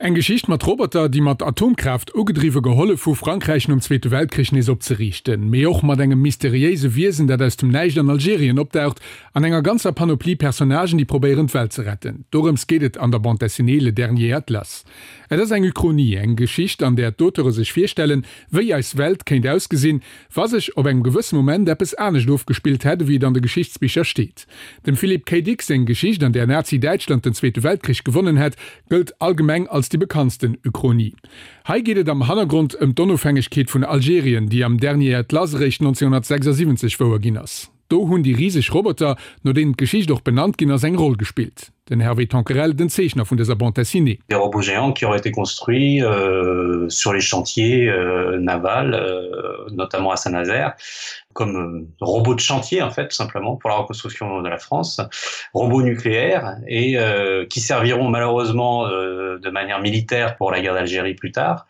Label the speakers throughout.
Speaker 1: Eng Geschicht mat Roboter, déi mat Atomkraaft ugedriwwe gehollef hu Frankräich nom Zweete Weltkrich nees opzeriichten, mee och mat engem mysteriéise Wiesen, dat aus dem Näischt an Algerien opdaucht, an enger ganzer Panoplie Personnagen, déi probéieren d'Welt ze retten. Dorëms geet et an der Bande dessinée Le Dernier Atlas. Et ass eng Uchronie, eng Geschicht, an där d'Auteure sech virstellen, wéi eis Welt kéint ausgesinn, wa sech op engem gewësse Moment eppes anescht ofgespillt hätt, ewéi et an de Geschichtsbicher steet. Dem Philip K. Dick seng Geschicht, an där Nazi-Däitschland den Zweete Weltkrich gewonnen hätt, gëllt allgemeng als déi bekanntsten Uchronie. Hei geet et am Hannergrond ëm d'Onofhängegkeet vun Algerien, déi am Dernier Atlas eréischt 1976 wouer ginn ass. Do hunn déi riseg Roboter, no deenen d'Geschicht och benannt ginn ass, eng Roll gespillt. Den Hervé Tonquerel, den Zeechner vun dëser Bande dessinée.
Speaker 2: Des robots géants qui auraient été construits euh, sur les chantiers euh, navals, euh, notamment à Saint-Nazaire, comme euh, robots de chantier en fait tout simplement pour la reconstruction de la France, robots nucléaires et euh, qui serviront malheureusement euh, de manière militaire pour la guerre d'Algérie plus tard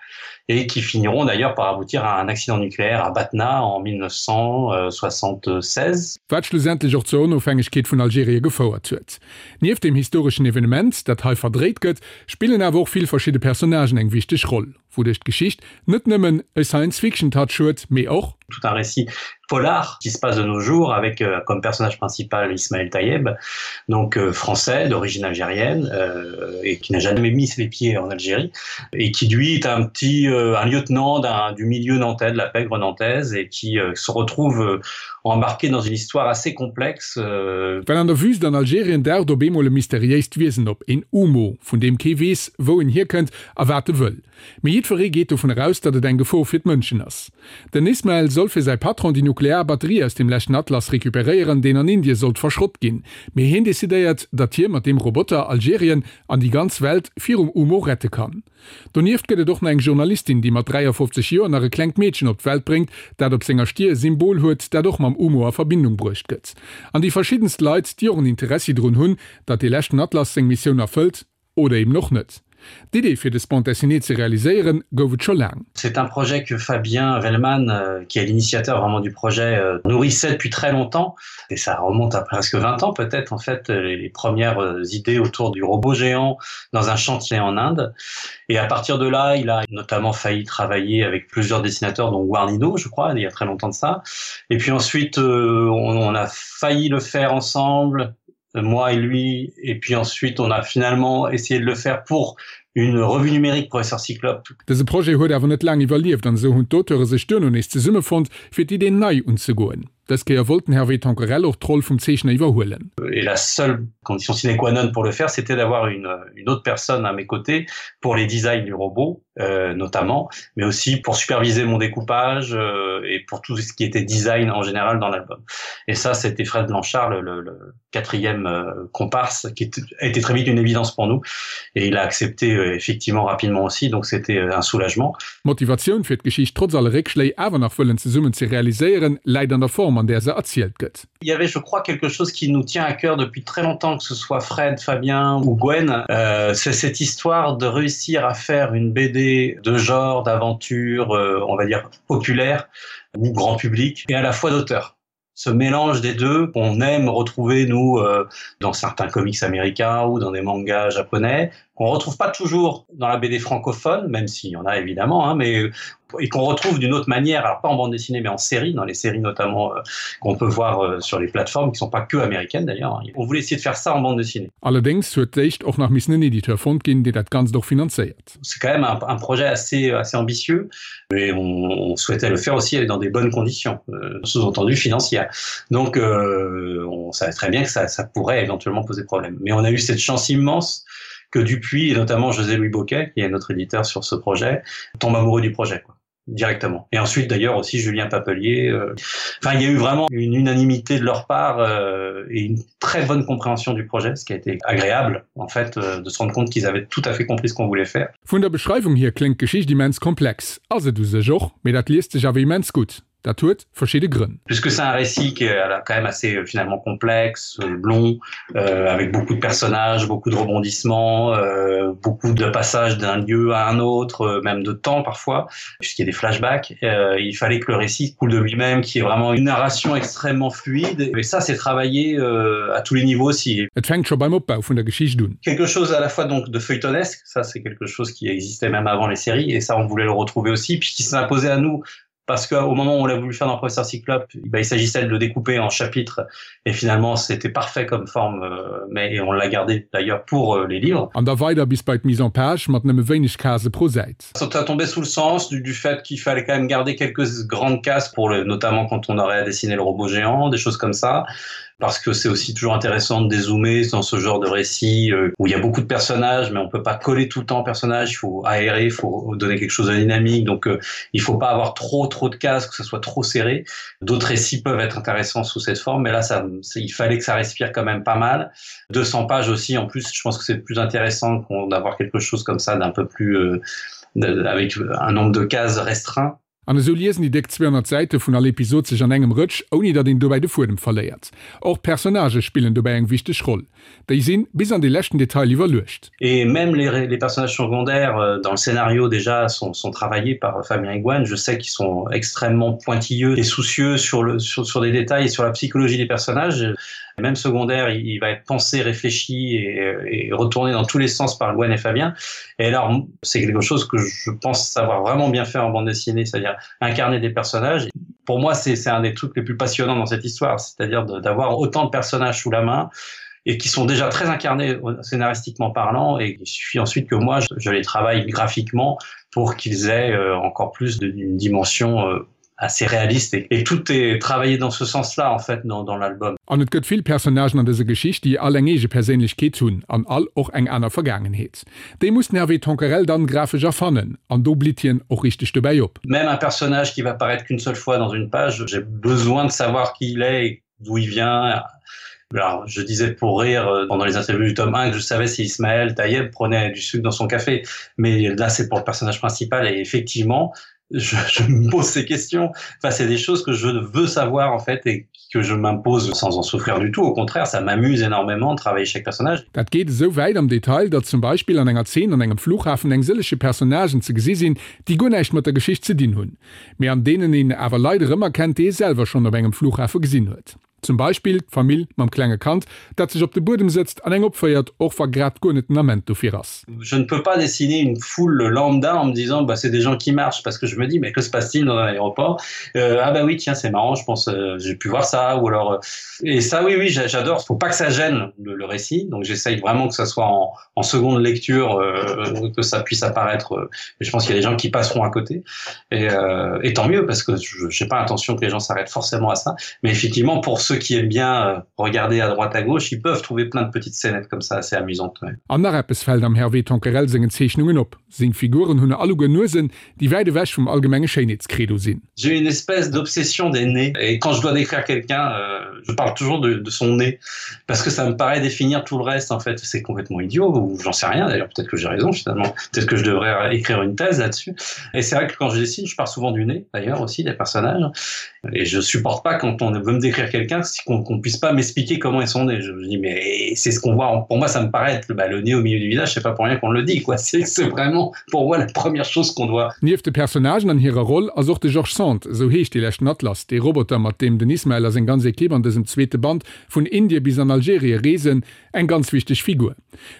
Speaker 2: et qui finiront d'ailleurs par aboutir à un accident nucléaire à Batna en 1976.
Speaker 1: Wat schlussendlech och zur Onofhängegkeet vun Algerien gefouert huet. Nieft dem historeschen Evenement, dat hei verdréit gëtt, spillen awer och vill verschidde Personnagen eng wichteg Roll, wouduerch d'Geschicht net nëmmen e Science-Fiction-Touch huet, mee och.
Speaker 2: Tout un récit polar qui se passe de nos jours avec euh, comme personnage principal Ismaël Tayeb, donc euh, français d'origine algérienne euh, et qui n'a jamais mis les pieds en Algérie et qui lui est un petit euh, un lieutenant du milieu nantais de la pègre nantaise et qui euh, se retrouve euh, embarqué dans une histoire assez complexe. Euh...
Speaker 1: Well an der Wüst an Algerien daucht op eemol e mysteriéist Wiesen op, een Umo, vun deem kee weess, wou en hierkënnt a wat e wëll. Mee jiddweree geet dovun eraus, datt et eng Gefor fir d'Mënschen ass. Den Ismael soll fir säi Patron déi nuklear Batterie aus dem leschten Atlas recuperéieren, deen an Indie sollt verschrott ginn. Mee hien decidéiert, datt hie mat deem Roboter Algerien an déi ganz Welt virum Umo rette kann. Donieft gëtt et och nach eng Journalistin, déi mat 53 Joer nach e klengt Meedchen op d'Welt bréngt, dat op senger Stier e Symbol huet, dat och mam Umo a Verbindung bruecht gëtt. An déi verschiddenst Leit, déi och en Interessi drun hunn, datt dee leschten Atlas seng Missioun erfëllt. Oder eben och net. D'Idee fir dës Bande dessinée ze realiséieren, gouf et scho laang.
Speaker 2: C'est un projet que Fabien Vellman, euh, qui est l'initiateur vraiment du projet, euh, nourrissait depuis très longtemps et ça remonte à presque 20 ans peut-être en fait euh, les premières idées autour du robot géant dans un chantier en Inde. Et à partir de là, il a notamment failli travailler avec plusieurs dessinateurs dont Warnino, je crois, il y a très longtemps de ça. Et puis ensuite on, on a failli le faire ensemble, moi et lui et puis ensuite on a finalement essayé de le faire pour une revue numérique professeur Cyclope.
Speaker 1: Dëse Projet huet awer net laang iwwerlieft an esou hunn d'Auteure sech duerno nees zesummefonnt, fir d'Idee nei unzegoen. Dës Kéier wollt den Hervé Tanquerel och d'Roll vum Zeechner iwwerhuelen.
Speaker 2: Et la seule condition sine qua non pour le faire, c'était d'avoir une, une autre personne à mes côtés pour les designs du robot euh, notamment, mais aussi pour superviser mon découpage euh, et pour tout ce qui était design en général dans l'album. Et ça, c'était Fred Blanchard, le, le, le quatrième euh, comparse, qui a été très vite une évidence pour nous. Et il a accepté euh, effectivement rapidement aussi, donc c'était euh, un soulagement.
Speaker 1: D'Motivatioun fir d'Geschicht trotz alle Réckschléi awer nach wëllen zesummen ze realiséieren, läit an der Form an där se erzielt gëtt.
Speaker 2: Il y avait je crois quelque chose qui nous tient à cœur depuis très longtemps que ce soit Fred, Fabien ou Gwen, euh, c'est cette histoire de réussir à faire une BD de genre, d'aventure, euh, on va dire populaire ou grand public et à la fois d'auteur. Ce mélange des deux qu'on aime retrouver nous euh, dans certains comics américains ou dans des mangas japonais, qu'on retrouve pas toujours dans la BD francophone, même s'il y en a évidemment hein, mais et qu'on retrouve d'une autre manière alors pas en bande dessinée mais en série dans les séries notamment euh, qu'on peut voir euh, sur les plateformes qui sont pas que américaines d'ailleurs on voulait essayer de faire ça en bande dessinée
Speaker 1: allerdings huet d'éischt och nach missen en Editeur fonnt ginn, deen dat Ganzt och finanzéiert.
Speaker 2: C'est quand même un, un projet assez assez ambitieux mais on, on souhaitait le faire aussi dans des bonnes conditions euh, sous-entendu financières donc euh, on savait très bien que ça, ça pourrait éventuellement poser problème mais on a eu cette chance immense que Dupuis et notamment José Louis Boquet qui est notre éditeur sur ce projet tombe amoureux du projet quoi directement et ensuite d'ailleurs aussi Julien Papelier euh, enfin il y a eu vraiment une unanimité de leur part euh, et une très bonne compréhension du projet ce qui a été agréable en fait euh, de se rendre compte qu'ils avaient tout à fait compris ce qu'on voulait faire
Speaker 1: Vun der Beschreiwung hier kléngt d'Geschicht immens komplex, ass et u sech och, mee dat liest sech awer immens gutt. Dat huet verschidde Grënn.
Speaker 2: Puisque c'est un récit qui est quand même assez euh, finalement complexe, euh, long, euh, avec beaucoup de personnages, beaucoup de rebondissements, euh, beaucoup de passages d'un lieu à un autre, euh, même de temps parfois, puisqu'il y a des flashbacks, euh, il fallait que le récit coule de lui-même, qu'il y ait vraiment une narration extrêmement fluide. Et ça, c'est travaillé euh, à tous les niveaux aussi.
Speaker 1: Et fänkt scho beim Opbau vun der Geschicht un.
Speaker 2: Quelque chose à la fois donc de feuilletonesque, ça c'est quelque chose qui existait même avant les séries, et ça on voulait le retrouver aussi, puis qui s'est imposé à nous parce qu'au moment où on l'a voulu faire dans Professeur Cyclope, ben, il s'agissait de le découper en chapitres et finalement c'était parfait comme forme euh, mais et on l'a gardé d'ailleurs pour euh, les livres.
Speaker 1: An da weider bis bei d'Mise en page mat nëmme wéineg Case pro Säit.
Speaker 2: Ça a tombé sous le sens du, du fait qu'il fallait quand même garder quelques grandes cases pour le notamment quand on aurait à dessiner le robot géant, des choses comme ça parce que c'est aussi toujours intéressant de dézoomer dans ce genre de récit euh, où il y a beaucoup de personnages mais on peut pas coller tout le temps personnage, il faut aérer, il faut donner quelque chose de dynamique donc euh, il faut pas avoir trop trop de cases que ce soit trop serré. D'autres récits peuvent être intéressants sous cette forme mais là ça il fallait que ça respire quand même pas mal. 200 pages aussi en plus je pense que c'est plus intéressant d'avoir quelque chose comme ça d'un peu plus euh, avec un nombre de cases restreint.
Speaker 1: An esou liesen déi déck 200 Säite vun all Episod sech an engem Rëtsch, ouni datt een dobäi de Fuedem verléiert. Och d'Personnagë spillen dobäi eng wichteg Roll. Déi sinn bis an de leschten Detail iwwerluecht.
Speaker 2: Et même les, les personnages secondaires euh, dans le scénario déjà sont, sont travaillés par Fabien Iguane. Je sais qu'ils sont extrêmement pointilleux et soucieux sur, le, sur, sur des détails et sur la psychologie des personnages. Même secondaire, il, il va être pensé, réfléchi et, et retourné dans tous les sens par Gwen et Fabien. Et alors c'est quelque chose que je pense savoir vraiment bien faire en bande dessinée, c'est-à-dire incarner des personnages. Pour moi, c'est un des trucs les plus passionnants dans cette histoire, c'est-à-dire d'avoir autant de personnages sous la main et qui sont déjà très incarnés scénaristiquement parlant et il suffit ensuite que moi je, je les travaille graphiquement pour qu'ils aient euh, encore plus d'une dimension euh, assez réaliste et, et tout est travaillé dans ce sens là en fait dans, dans l'album.
Speaker 1: An et gëtt vill Personnagen an dëser Geschicht, déi all eng eege Perséinlechkeet hunn an all och eng aner Vergaangenheet. Déi muss den Hervé Tonquerel dann grafesch erfannen an do blitt hien och richteg dobäi op.
Speaker 2: Même un personnage qui va paraître qu'une seule fois dans une page, j'ai besoin de savoir qui il est, d'où il vient. Alors, je disais pour rire euh, pendant les interviews du tome 1 que je savais si Ismaël Taïeb prenait du sucre dans son café. Mais là, c'est pour le personnage principal et effectivement, je, je me pose ces questions. Enfin, c'est des choses que je veux savoir en fait et que je m'impose sans en souffrir du tout. Au contraire, ça m'amuse énormément de travailler chaque personnage.
Speaker 1: Dat geet esou wäit am Detail, datt zum Beispill an enger Zeen an engem Flughafen eng sëllege Personnagen ze gesi sinn, déi guer näischt mat der Geschicht ze dinn hunn, mee an deenen een awer Leit erëmerkennt, déi ee selwer schonn op engem Flughafe gesinn huet. Zum Beispill d'Famill mam klenge Kand, dat sech op de Buedem sëtzt an eng opféiert, och wa grad guer net den Ament dofir ass.
Speaker 2: Je ne peux pas dessiner une foule lambda en me disant bah, c'est des gens qui marchent parce que je me dis mais que se passe-t-il dans un aéroport euh, ah bah oui tiens c'est marrant je pense euh, j'ai pu voir ça ou alors euh, et ça oui oui j'adore faut pas que ça gêne le, le récit donc j'essaye vraiment que ça soit en, en seconde lecture euh, que ça puisse apparaître euh, je pense qu'il y a des gens qui passeront à côté et, euh, et tant mieux parce que je n'ai pas intention que les gens s'arrêtent forcément à ça mais effectivement pour ceux qui aiment bien euh, regarder à droite à gauche ils peuvent trouver plein de petites scénettes comme ça assez amusantes ouais.
Speaker 1: An nach eppes fält am Hervé Tonquerel sengen Zeechnungen op, Seng Figuren hunn alleguer Nuesen, déi wäit ewech vum allgemenge Schéinheetskredo sinn.
Speaker 2: J'ai une espèce d'obsession des nez et quand je dois décrire quelqu'un, euh, je parle toujours de, de son nez parce que ça me paraît définir tout le reste en fait. C'est complètement idiot ou j'en sais rien d'ailleurs, peut-être que j'ai raison finalement, peut-être que je devrais écrire une thèse là-dessus. Et c'est vrai que quand je dessine, je pars souvent du nez d'ailleurs aussi des personnages et je supporte pas quand on veut me décrire quelqu'un qu'on qu'on puisse pas m'expliquer comment est son nez. Je me dis mais c'est ce qu'on voit, pour moi ça me paraît être bah, le nez au milieu du visage, c'est pas pour rien qu'on le dit quoi. C'est vraiment pour moi la première chose qu'on doit.
Speaker 1: Nieft de Personnagen an hirer Roll ass och de George Sand, esou heescht dee leschten Atlas, dee Roboter mat deem den Ismael a seng ganz Ekipp an dësem zweete Band vun Indie bis an Algerie reesen, eng ganz wichteg Figur.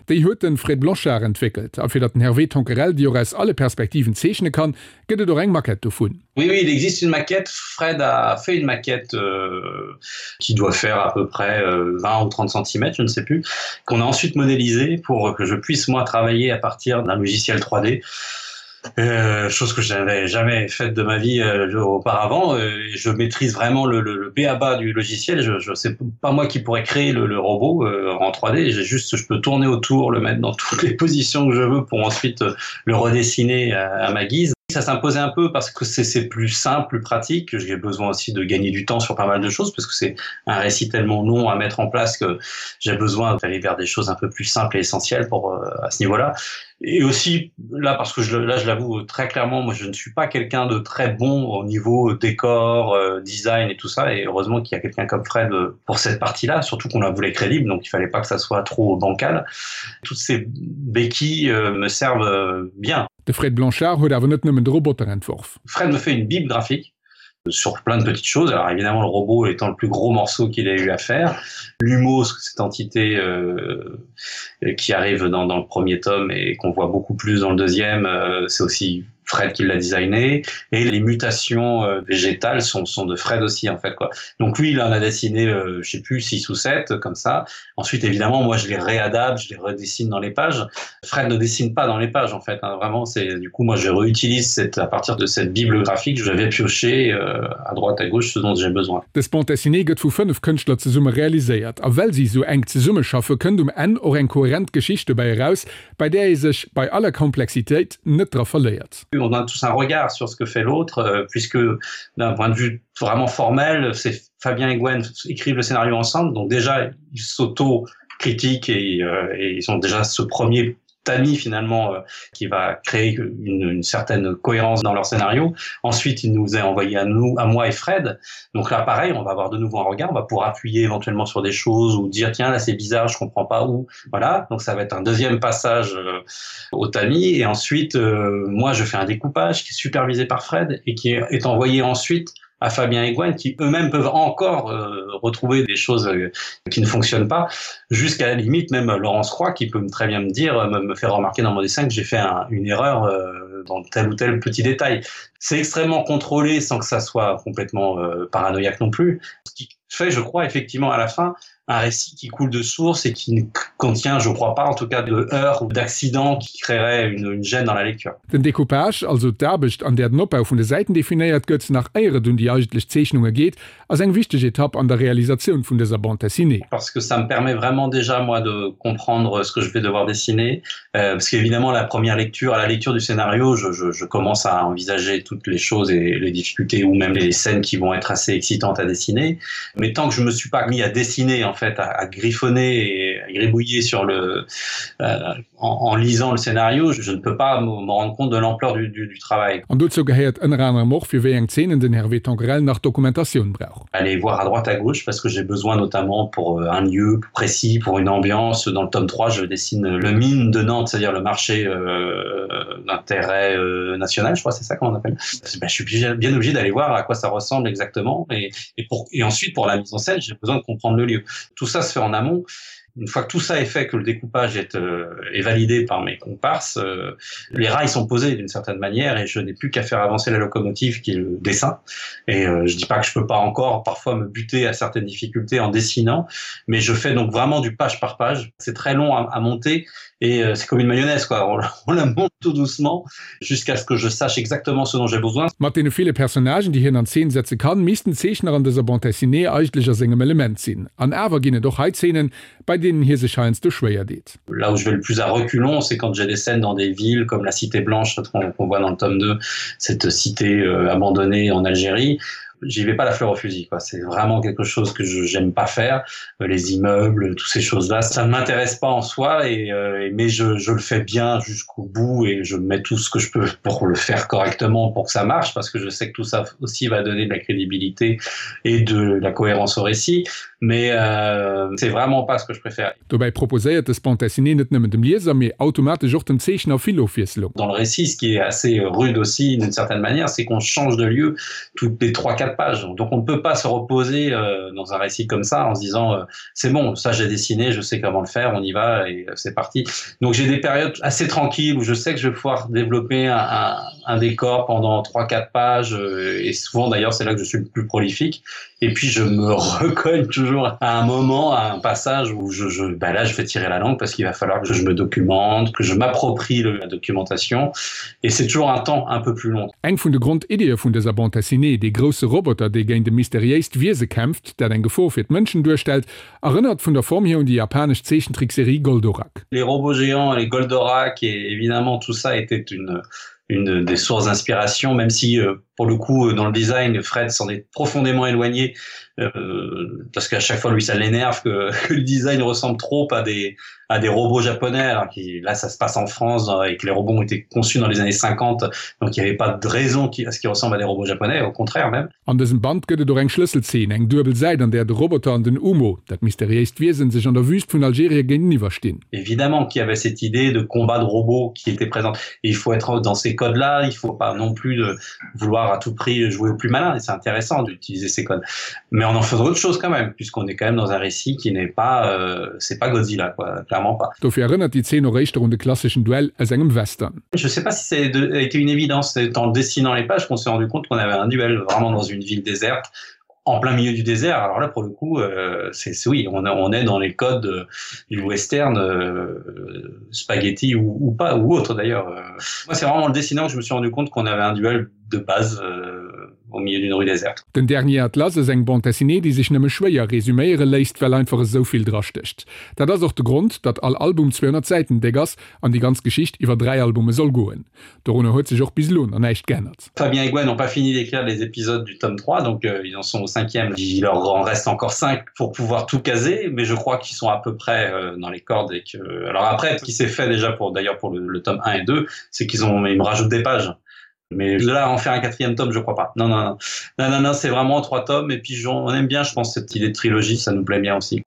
Speaker 1: Déi huet de Fred Blanchard entwéckelt a fir datt den Hervé Tonquerel déi och aus alle Perspektiven zeechne kann, gëtt et och eng Maquette dovun.
Speaker 2: Oui, oui, il existe une maquette. Fred a fait une maquette euh, qui doit faire à peu près euh, 20 ou 30 cm, je ne sais plus, qu'on a ensuite modélisé pour que je puisse moi travailler à partir d'un logiciel 3D. Euh, chose que je n'avais jamais faite de ma vie euh, auparavant. Euh, je maîtrise vraiment le, le, le BABA du logiciel. Je, je c'est pas moi qui pourrais créer le, le robot euh, en 3D. J'ai juste je peux tourner autour, le mettre dans toutes les positions que je veux pour ensuite euh, le redessiner à, à ma guise. Ça s'imposait un peu parce que c'est plus simple, plus pratique. J'ai besoin aussi de gagner du temps sur pas mal de choses parce que c'est un récit tellement long à mettre en place que j'ai besoin d'aller vers des choses un peu plus simples et essentielles pour euh, à ce niveau-là. Et aussi là parce que je, là je l'avoue très clairement, moi je ne suis pas quelqu'un de très bon au niveau décor, euh, design et tout ça et heureusement qu'il y a quelqu'un comme Fred euh, pour cette partie-là, surtout qu'on la voulait crédible donc il fallait pas que ça soit trop bancal. Toutes ces béquilles euh, me servent euh, bien.
Speaker 1: De Fred Blanchard huet awer net nëmmen de Roboter entworf.
Speaker 2: Fred me fait une bible graphique sur plein de petites choses. Alors évidemment le robot étant le plus gros morceau qu'il ait eu à faire, l'humo, cette entité euh, qui arrive dans, dans le premier tome et qu'on voit beaucoup plus dans le deuxième, euh, c'est aussi Fred qui l'a designé et les mutations euh, végétales sont, sont de Fred aussi en fait quoi. Donc lui il en a dessiné euh, je sais plus 6 ou 7 comme ça. Ensuite évidemment moi je les réadapte, je les redessine dans les pages. Fred ne dessine pas dans les pages en fait hein. vraiment c'est du coup moi je réutilise cette à partir de cette bible graphique je vais piocher euh, à droite à gauche ce dont j'ai besoin.
Speaker 1: Dës Bande dessinée gëtt vu 5 Kënschtler zesumme realiséiert a well si sou enk zesummeschaffe kënnt um Enn och eng kohärent Geschicht dobäi eraus, bei där ee sech bei aller Komplexitéit net dra verléiert.
Speaker 2: On a tous un regard sur ce que fait l'autre euh, puisque d'un point de vue vraiment formel, c'est Fabien et Gwen écrivent le scénario ensemble, donc déjà ils s'auto-critiquent et, euh, et ils ont déjà ce premier tamis finalement euh, qui va créer une, une certaine cohérence dans leur scénario. Ensuite, il nous est envoyé à nous, à moi et Fred. Donc là pareil, on va avoir de nouveau un regard, on va pouvoir appuyer éventuellement sur des choses ou dire tiens là c'est bizarre, je comprends pas où. Voilà, donc ça va être un deuxième passage euh, au tamis et ensuite euh, moi je fais un découpage qui est supervisé par Fred et qui est, est envoyé ensuite à Fabien et Gwen qui eux-mêmes peuvent encore euh, retrouver des choses euh, qui ne fonctionnent pas jusqu'à la limite même Laurence Croix qui peut très bien me dire euh, me, me faire remarquer dans mon dessin que j'ai fait un, une erreur euh, dans tel ou tel petit détail. C'est extrêmement contrôlé sans que ça soit complètement euh, paranoïaque non plus. Ce qui fait je crois effectivement à la fin un récit qui coule de source et qui ne contient je crois pas en tout cas de heurts ou d'accidents qui créerait une, une gêne dans la lecture.
Speaker 1: Den Decoupage, also d'Aarbecht an där den Opbau vun de Säiten definéiert gëtt, nach éier et un déi eigentlech Zeechnunge geet, ass eng wichteg Etapp an der Realisatioun vun dëser Bande dessinée.
Speaker 2: Parce que ça me permet vraiment déjà moi de comprendre ce que je vais devoir dessiner euh, parce qu'évidemment la première lecture à la lecture du scénario je, je, je commence à envisager toutes les choses et les difficultés ou même les scènes qui vont être assez excitantes à dessiner mais tant que je me suis pas mis à dessiner en fait à, à griffonner et à gribouiller sur le euh, en, en lisant le scénario je, je ne peux pas me rendre compte de l'ampleur du, du, du travail.
Speaker 1: An dozou gehéiert ënner anerem och, fir wéi eng Zeenen den Hervé Tanquerel nach Dokumentatioun brauch.
Speaker 2: Aller voir à droite à gauche parce que j'ai besoin notamment pour euh, un lieu précis, pour une ambiance. Dans le tome 3, je dessine le mine de Nantes, c'est-à-dire le marché euh, d'intérêt euh, national, je crois c'est ça qu'on appelle. Ben, je suis bien obligé d'aller voir à quoi ça ressemble exactement et, et, pour, et ensuite pour la mise en scène, j'ai besoin de comprendre le lieu. Tout ça se fait en amont une fois que tout ça est fait que le découpage est, euh, est validé par mes comparses euh, les rails sont posés d'une certaine manière et je n'ai plus qu'à faire avancer la locomotive qui est le dessin et euh, je dis pas que je peux pas encore parfois me buter à certaines difficultés en dessinant mais je fais donc vraiment du page par page c'est très long à, à monter et euh, c'est comme une mayonnaise quoi on, on la monte tout doucement jusqu'à ce que je sache exactement ce dont j'ai besoin
Speaker 1: Mat deene ville Personnagen, déi hien an Zeen setze kann, misst den Zeechner an dëser Bande dessinée eigentlech a sengem Element sinn. An awer ginn et och hei Zeenen, bei deenen hie sech heiansdo schwéier deet.
Speaker 2: Là où je vais le plus à reculons, c'est quand j'ai des scènes dans des villes comme la Cité Blanche qu'on voit dans le tome 2, cette cité euh, abandonnée en Algérie j'y vais pas la fleur au fusil quoi c'est vraiment quelque chose que je j'aime pas faire euh, les immeubles toutes ces choses là ça ne m'intéresse pas en soi et, euh, et mais je, je le fais bien jusqu'au bout et je mets tout ce que je peux pour le faire correctement pour que ça marche parce que je sais que tout ça aussi va donner de la crédibilité et de la cohérence au récit mais euh, c'est vraiment pas ce que je préfère.
Speaker 1: Dobäi proposéiert dës Bande dessinée net nëmmen dem Lieser, mee automatesch och dem Zeechner vill Ofwiesslung.
Speaker 2: Dans le récit, ce qui est assez rude aussi d'une certaine manière, c'est qu'on change de lieu toutes les 3 4 pages. Donc on ne peut pas se reposer euh, dans un récit comme ça en se disant euh, c'est bon, ça j'ai dessiné, je sais comment le faire, on y va et euh, c'est parti. Donc j'ai des périodes assez tranquilles où je sais que je vais pouvoir développer un, un, un décor pendant 3 4 pages euh, et souvent d'ailleurs c'est là que je suis le plus prolifique et puis je me recogne toujours à un moment à un passage où je, je ben là je vais tirer la langue parce qu'il va falloir que je me documente que je m'approprie la documentation et c'est toujours un temps un peu plus long
Speaker 1: Eng vun de Grondiddie vun dëser Bande dessinée, dee grousse Roboter dee géint e mysteriéist Wiese kämpft, dat eng Gefor fir d'Mënschen duerstellt, erënnert vun der Form hier un déi japanesch Zeechentrickserie Goldorak.
Speaker 2: Les robots géants, les Goldorak et évidemment tout ça était une. une des sources d'inspiration, même si euh, pour le coup dans le design Fred s'en est profondément éloigné euh, parce qu'à chaque fois lui ça l'énerve que, que le design ressemble trop à des à des robots japonais alors qui là ça se passe en France et que les robots ont été conçus dans les années 50 donc il n'y avait pas de raison qui à ce qui ressemble à des robots japonais au contraire même.
Speaker 1: An dësem Band gëtt et och eng Schlësselzeen, eng duebel Säit an där de Roboter an den Umo, dat mysteriéist Wiesen, sech an der Wüst vun Algerie géinteniwwer stinn.
Speaker 2: Évidemment qu'il y avait cette idée de combat de robots qui était présente et il faut être dans ces codes là, il faut pas non plus de vouloir à tout prix jouer au plus malin et c'est intéressant d'utiliser ces codes. Mais on en faisait autre chose quand même puisqu'on est quand même dans un récit qui n'est pas euh, c'est pas Godzilla quoi, clairement pas.
Speaker 1: Dofir erënnert déi Zeen och éischter un de klasseschen Duell aus engem Western.
Speaker 2: Je sais pas si ça a été une évidence, c'est en dessinant les pages qu'on s'est rendu compte qu'on avait un duel vraiment dans une ville déserte en plein milieu du désert. Alors là pour le coup euh, c'est oui, on, on est dans les codes euh, du western euh, spaghetti ou, ou pas ou autre d'ailleurs. Euh, moi c'est vraiment en le dessinant que je me suis rendu compte qu'on avait un duel de base euh, au milieu d'une rue déserte.
Speaker 1: Den Dernier Atlas ass eng Bande dessinée, déi sech nëmme schwéier resuméiere léisst, well einfach esou vill drastécht. Dat ass och de Grond, datt all Album 200 Säiten déck ass an déi ganz Geschicht iwwer 3 Albume soll goen. Dorunner huet sech och bis elo nach näischt geännert.
Speaker 2: Fabien et Gwen n'ont pas fini d'écrire les épisodes du tome 3, donc euh, ils en sont au cinquième. Il leur en reste encore 5 pour pouvoir tout caser, mais je crois qu'ils sont à peu près euh, dans les cordes et que alors après ce qui s'est fait déjà pour d'ailleurs pour le, le tome 1 et 2, c'est qu'ils ont ils me rajoutent des pages. Mais là en faire un quatrième tome, je crois pas. Non non non non non, non c'est vraiment trois tomes et puis on aime bien je pense cette idée de trilogie, ça nous plaît bien aussi.